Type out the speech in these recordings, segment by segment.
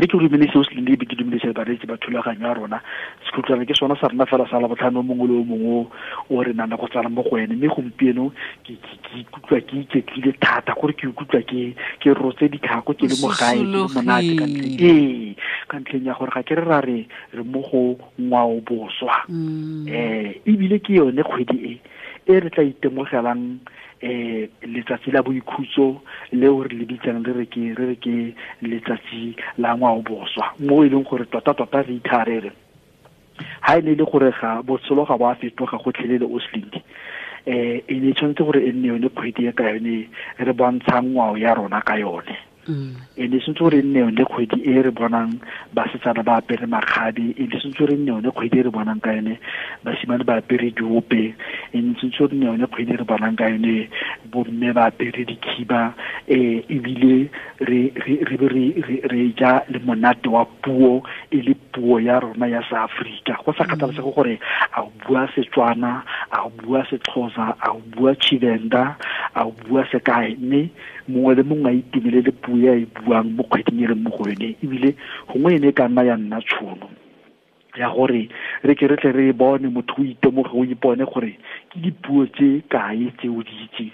Re ke dumedise o se lebe, ke dumedise bareetsi ba thulaganyo ya rona. Sekhutlwana ke sona sa rona fela sa Labotlhano mongwe le o mongwe o re nang le go tsala mo go ene, mme gompieno ke ikutlwa ke iketlile thata, gore ke ikutlwa ke rotse ditlhako, ke le mo gae, ke le monate ka ntlheng ee, ka ntlheng ya gore ga ke re ra re re mo go ngwao boswa. Ebile ke yone kgwedi e e re tla itemogelang letsatsi la boikhutso leo re le bitsang re re ke letsatsi la ngwao boswa, mo e leng gore tota tota re itharere ha e ne le gore ga botshelo ga bo a fetoga gotlhelele o slindi. E ne tshwanetse gore e nne yone kgwedi e ka yone re bontshang ngwao ya rona ka yone. E ne tshwanetse gore e nne yone kgwedi e re bonang basetsana ba apere makgabe, e ne tshwanetse gore e nne yone kgwedi e re bonang ka yone basimane ba apere diope, e ne tshwanetse gore e nne yone kgwedi e re bonang ka yone bomme ba apere dikhiba, ebile re ja le monate wa puo e le puo ya rona ya Seafrika, go sa kgathalesege gore a o bua Setswana, a o bua Sexhosa, a o bua Tshivenda, a o bua sekae, mme mongwe le mongwe a itumelele puo e a e buang mo kgweding e leng mo go yone. Ebile gongwe e ne e ka nna ya nna tšhono ya gore re ke re tle re bone motho o itemoge, o ipone gore ke dipuo tse kae tse o di itseng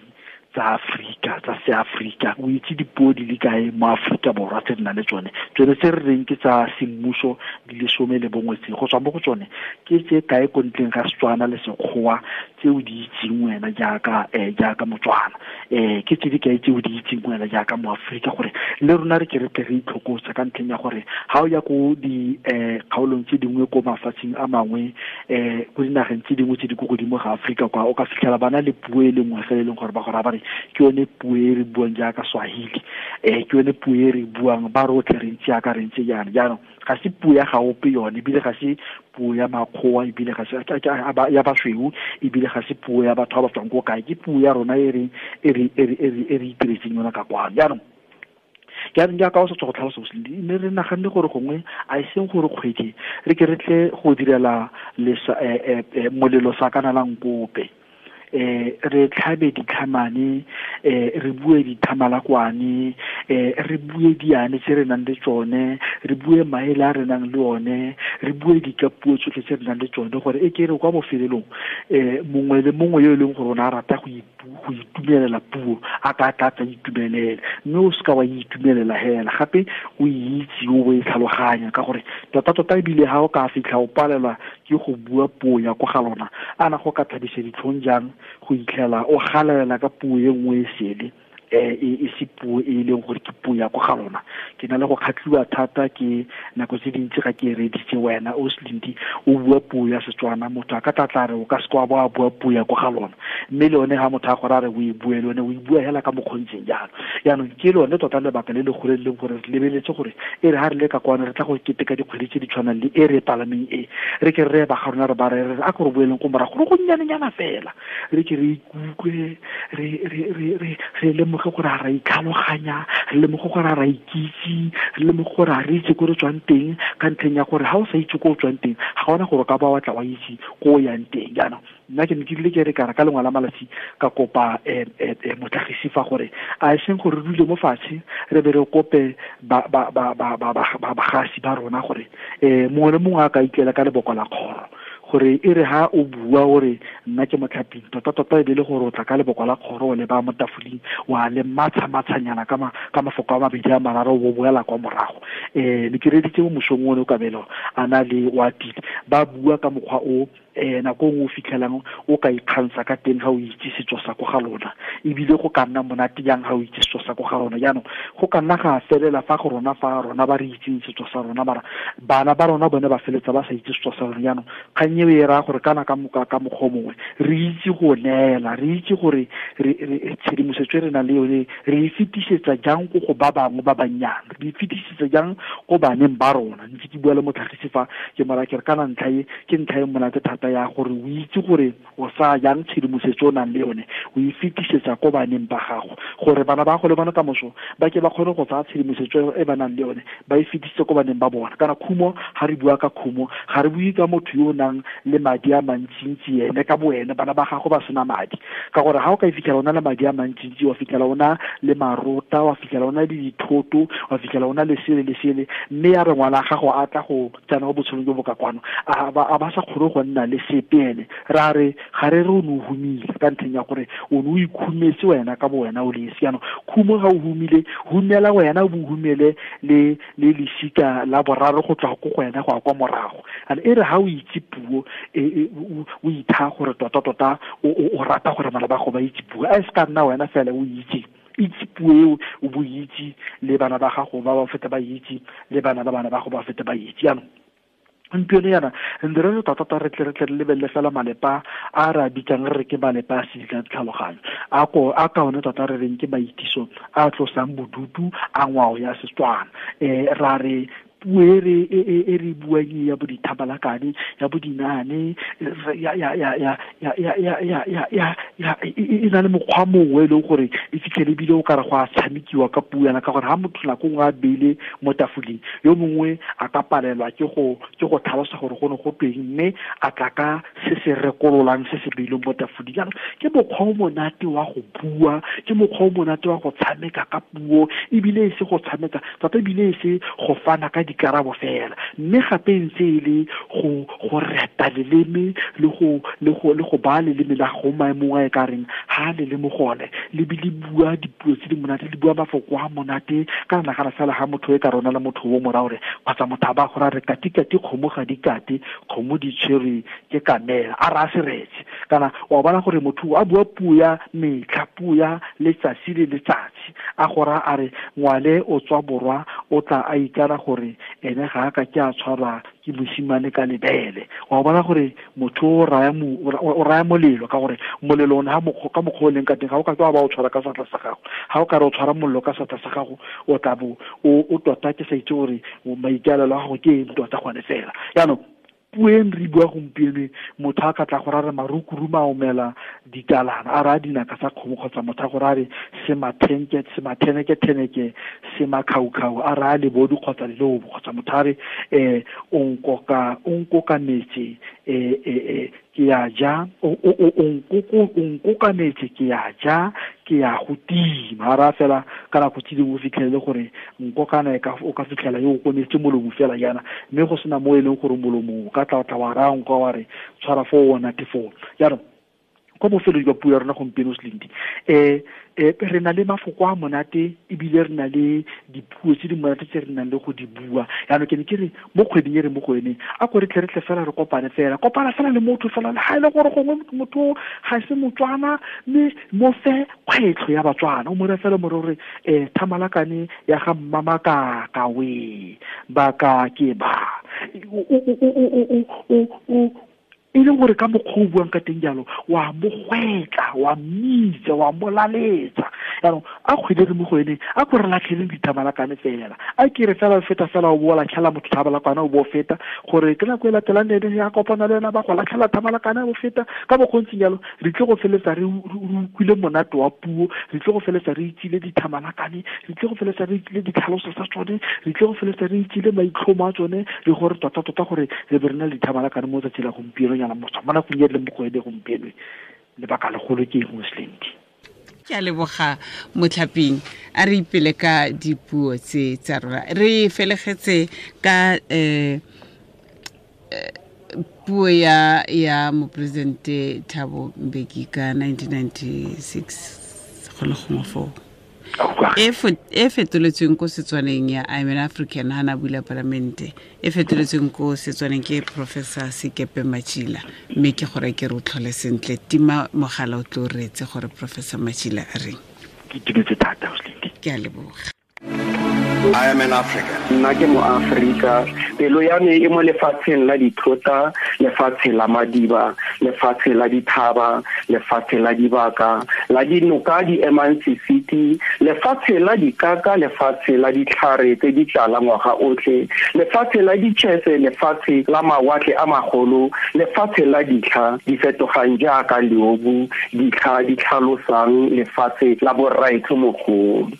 tsa Afrika, tsa Seafrika, o itse dipuo di le kae mo Afrika Borwa tse di nang le tsone, tsone tse re reng ke tsa semmuso di le 11 tse, go tswa mo go tsone ke tse kae ko ntleng ga Setswana le Sekgowa tse o di itseng wena jaaka Motswana, ke tse di kae tse o di itseng wena jaaka Moaforika, gore le rona re ke re tle re itlhokotsa ka ntlheng ya gore ha o ya ko di kgaolong tse dingwe ko mafatsheng a mangwe, ko dinageng tse dingwe tse di ko godimo ga Aforika kwa, o ka fitlhela ba na le puo e le nngwe fela e leng gore ba go raya ba re ke yone puo e re buang jaaka Swahili, ke yone puo e re buang ba rotlhe re ntse jaaka re ntse jaana. Jaanong ga se puo ya gaope yone, ebile ga se puo ya makgowa, ebile ga se ya basweu, ebile ga se puo ya batho ba ba tswang ko kae, ke puo ya rona e re itiretseng yona ka kwano. Jaanong jaaka o sa tswa go tlhalosa boslindi, mme re naganne gore gongwe a e seng gore kgwedi re ke re tle go direla molelo sa kana la nkope, re tlhabe ditlhamane, re bue dithamalakwane, re bue diane tse re nang le tsone, re bue maele a re nang le one, re bue dikapuo tsotlhe tse re nang le tsone, gore e ke re kwa bofelelong mongwe le mongwe yo e leng gore o ne a rata go itumelela puo a ka tla tla itumelele, mme o seka wa itumelela hela gape o itse o e tlhaloganya, ka gore tota tota ebile ha o ka fitlha o palelwa ke go bua puo ya ko ga lona, ana go ka thabisa ditlhong jang go itlhela o galelela ka puo e nngwe e sele, e se puo e leng gore ke puo ya ko ga lona. Ke na le go kgatlhiwa thata ke nako tse dintsi ga ke reditse wena o Slindi o bua puo ya Setswana, motho a ka tla tla re o ka se kwa ba bua puo ya ko ga lona, mme le yone ha motho a gore a re o e bue, le yone o e bua hela ka mokgontseng jalo. Jaanong ke lone tota lebaka le le gole leng gore re lebeletse gore e re ha re le ka kwano re tla go keteka dikgwedi tse di tshwanang le e re palameng e, re ke re ba ga rona re ba re re a ko re boeleng ko morago go gonnyanenyana fela, re ke re ikutlwe re lemoge gore ga ra itlhaloganya, re lemoge gore ga ra ikitse, re lemoge gore ga re itse ko re tswang teng, ka ntlheng ya gore ga o sa itse ko o tswang teng ga gona gore o ka ba wa tla wa itse ko o yang teng. Jaanong nna ke ne ke rile ke re ka lengwe la malatsi ka kopa motlhagisi fa gore a e seng gore re dule mo fatshe re be re kope bagasi ba rona gore mongwe le mongwe a ka itlela ka leboko la kgoro, gore e re ha o bua gore nna ke motlhaping, tota tota e be le gore o tla ka leboko la kgoro o le ba mo tafoleng wa le matsha-matshanyana ka mafoko a mabedi a mararo o boela kwa morago. Ne ke reditse mo mosong one o Kabelo a na le wa tile ba bua ka mokgwa o nako nngwe o fitlhelang o ka ikgantsha ka teng ga o itse setso sa ko ga lona, ebile go ka nna monate jang ga o itse setso sa ko ga lona. Jaanong go ka nna ga felela fa go rona fa rona ba re itseng setso sa rona, mara bana ba rona bone ba feletsa ba sa itse setso sa rona. Jaanong kgang eo e raya gore kana ka mokgwa o mongwe re itse go neela, re itse gore re tshedimosetso e re nang le yone re e fetisetsa jang ko go ba bangwe ba bannyane, re e fetisetsa jang ko baneng ba rona. Ntse ke bua le motlhagisi fa ke mora ke re kana ntlha e ke ntlha e monate thata. thata ya gore o itse gore o sa jang tshedimosetso o nang le yone o e fetisetsa ko baneng ba gago gore bana ba go le bona ka moso ba ke ba kgone go tsaya tshedimosetso e ba nang le yone ba e fetisitse ko baneng ba bona. Kana khumo, ga re bua ka khumo, ga re bue ka motho yo o nang le madi a mantsintsi ene ka boene, bana ba gago ba sena madi, ka gore ga o ka e fitlhela o na le madi a mantsintsi, wa fitlhela o na le marota, wa fitlhela o na le dithoto, wa fitlhela o na le sele le sele, mme ya re ngwana gago a tla go tsena mo botshelong jo bo ka kwano a ba sa kgone go nna le sepe ene, ra re ga re re o ne o humile ka ntlheng ya gore o ne o ikhumetse wena ka bo wena o le esi. Jaanong khumo ga o humile, humela wena o bo humele le le lesika la boraro go tswa ko go wena go ya kwa morago. And e re ga o itse puo o itha gore tota-tota o rata gore bana ba go ba itse puo, a e se ka nna wena fela o itse itse puo eo, o bo itse le bana ba gago ba ba feta ba itse, le bana ba bana ba go ba feta ba itse. Jaanong gompieno yana ntse re tota-tota re tle re tle re lebelele fela malepa a re a bitsang re re ke malepa a sedila tlhaloganyo, a ko a ka one tota re reng ke maitiso a tlosang bodutu a ngwao ya Setswana. Ra re puo e re e re buang e ya bo dithabalakane, ya bo dinaane, ya ya ya ya ya ya ya ya ya ya ya e na le mokgwa mongwe e leng gore e fitlhele ebile o kare go a tshamekiwa ka puo yana, ka gore ha motho nako nngwe a beile mo tafoleng, yo mongwe a ka palelwa ke go tlhalosa gore go ne go tweng, mme a tla ka se se rekololang se se beilweng mo tafoleng. Jaanong ke mokgwa o monate wa go bua, ke mokgwa o monate wa go tshameka ka puo, ebile e se go tshameka tota, ebile e se go fana ka dikarabo fela, mme gape ntse e le go reta leleme le go baya leleme la go maemong a e ka reng ha le le mo gone, le be le bua dipuo tse di monate, le bua mafoko a monate. Ka nagana fela ha motho e ka rona le motho o mo raya gore kgotsa motho a ba go raya re kati-kati kgomo ga di kate, kgomo di tshwerwe ke kamela, a raya seretse. Kana wa bona gore motho a bua puo ya metlha, puo ya letsatsi le letsatsi, a go raya a re ngwale o tswa borwa, o tla a ikana gore ene ga a ka ke a tshwarwa ke mosimane ka lebele. Wa bona gore motho o raya molelo, ka gore molelo one ka mokgwa o leng ka teng ga o ka ke wa ba o tshwara ka seatla sa gago. Ga o ka re o tshwara molelo ka seatla sa gago, o tla bo o tota ke sa itse gore maikaelelo a gago ke eng tota gone fela. Jaanong puo e re bua gompieno, motho a ka tla go rare marukuru maomela ditalana, a raya dinaka tsa kgomo, kgotsa motho a go rare sematheneke-theneke semakhaukau, a raya lebodu kgotsa lelobo, kgotsa motho a re o nkokametse ke ya ja, o nkokametse ke ya ja, ke ya go tima. A raya fela ka nako tse dingwe o fitlhelele gore nkokana o ka fitlhela yo o kometse molomo fela jaana, mme go sena mo e leng gore molomo o ka tla wa raya nka wa re tshwara foo o nate foo. Jaanong kwa bofelong jwa puo ya rona gompieno, Slindi, re na le mafoko a monate, ebile re na le dipuo tse di monate tse re nang le go di bua. Jaanong ke ne ke re mo kgweding e re mo go yone, a ko re tle re tle fela re kopane fela, kopana fela le motho fela, le ga e le gore gongwe motho ga se Motswana, mme mo fe kgwetlho ya Batswana, o mo re fela mo re gore thamalakane ya ga Mmamakaka we ba ka ke ba e leng gore ka mokgwa o buang ka teng jalo, wa mo gwetla, wa mmitsa, wa mo laletsa. Jaanong a kgwedi re mo go ene, a ko re latlheleng dithamalakane fela, a ke re fela o feta fela o bo latlhela motho thamalakane o bo feta, gore ke nako e latelang le ene ya kopana le ena ba go latlhela thamalakane o feta. Ka mokgwa o ntseng jalo re tle go feletsa re utlwile monate wa puo, re tle go feletsa re itsile dithamalakane, re tle go feletsa re itsile ditlhaloso tsa tsone, re tle go feletsa re itsile maitlhomo a tsone, le gore tota-tota gore re be re na le dithamalakane mo tsatsi la gompieno nyana motho mo nakong e le mo go ene gompieno. Lebaka legolo ke eng, Slindi? Ke a leboga Motlhaping, a re ipele ka dipuo tse tsa rona. Re felegetse ka puo ya moporesidente Thabo Mbeki ka 1996 go le gongwe foo, e fetoletsweng ko Setswaneng ya I'm an African, ha na bula palamente, e fetoletsweng ko Setswaneng ke Professor Sekepe Matjila, mme ke gore ke re o tlhole sentle. Tima mogala o tlo reetse gore Professor Matjila a reng. Ke itumetse thata, Slindi. Ke a leboga. I am an African. Nna ke mo Afrika, pelo ya me e mo lefatsheng la dithota, lefatshe la madiba, lefatshe la dithaba, lefatshe la dibaka, la dinoka di emang sesiti, lefatshe la dikaka, lefatshe la ditlhare tse di tlala ngwaga otlhe, lefatshe la ditšhese, lefatshe la mawatle a magolo, lefatshe la ditlha di fetogang jaaka leobu, ditlha di tlhalosang lefatshe la borraetsho mogolo.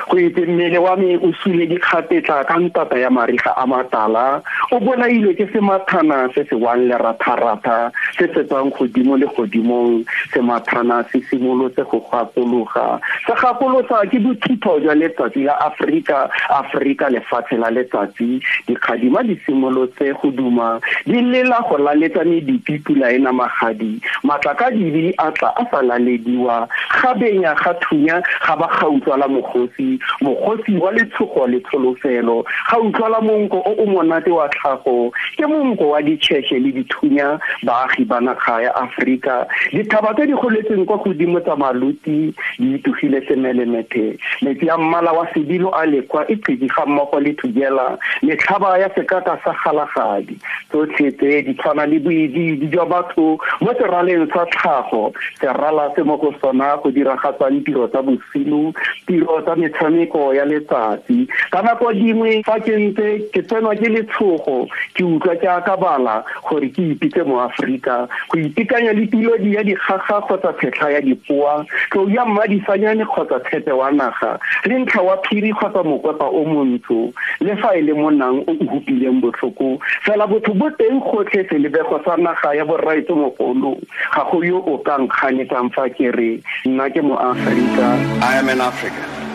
Go itse mmele wa me o sule dikgapetla ka ntata ya mariga a matala, o bolailwe ke semathana se se wang leratharatha se se tswang godimo le godimong. Semathana se simolotse go gakologa, se gakolosa ke bothitho jwa letsatsi la Aforika. Aforika lefatshe la letsatsi, dikgadima di simolotse go duma di lela go laletsa medupi pula e namagadi, matlakadibe a tla a sa lalediwa, ga benya ga thunya ga ba ga utlwala mogosi, mogosi wa letshogo le tsholofelo, ga utlwala monko o o monate wa tlhago, ke monko wa ditšheshe le dithunya. Baagi ba naga ya Aforika, dithaba tse di goletseng kwa godimo tsa maluti di itogile semelemethe, metsi a mmala wa sebilo a lekwa e qedi ga mmogo le thujela, metlhaba ya sekaka sa galagadi, tsotlhe tse di tshwana le boidiidi jwa batho mo seraleng sa tlhago, serala se mo go sona go diragatsang tiro tsa bosigo, tiro tsa metshameko ya letsatsi. Ka nako dingwe fa ke ntse ke tsenwa ke letshogo, ke utlwa ke akabala gore ke ipitse mo Aforika, go itekanya le pilodi ya dikgaga kgotsa phetlha ya dipoa, tlou ya mmadisanyane kgotsa tshepe wa naga, le ntlha wa phiri kgotsa mokwepa o montsho, le fa e le monang o o hupileng botlhoko, fela botho bo teng gotlhe selebego sa naga ya borraetsho mogolo. Ga go yo o ka nkganetsang fa ke re nna ke mo Aforika. I am an African.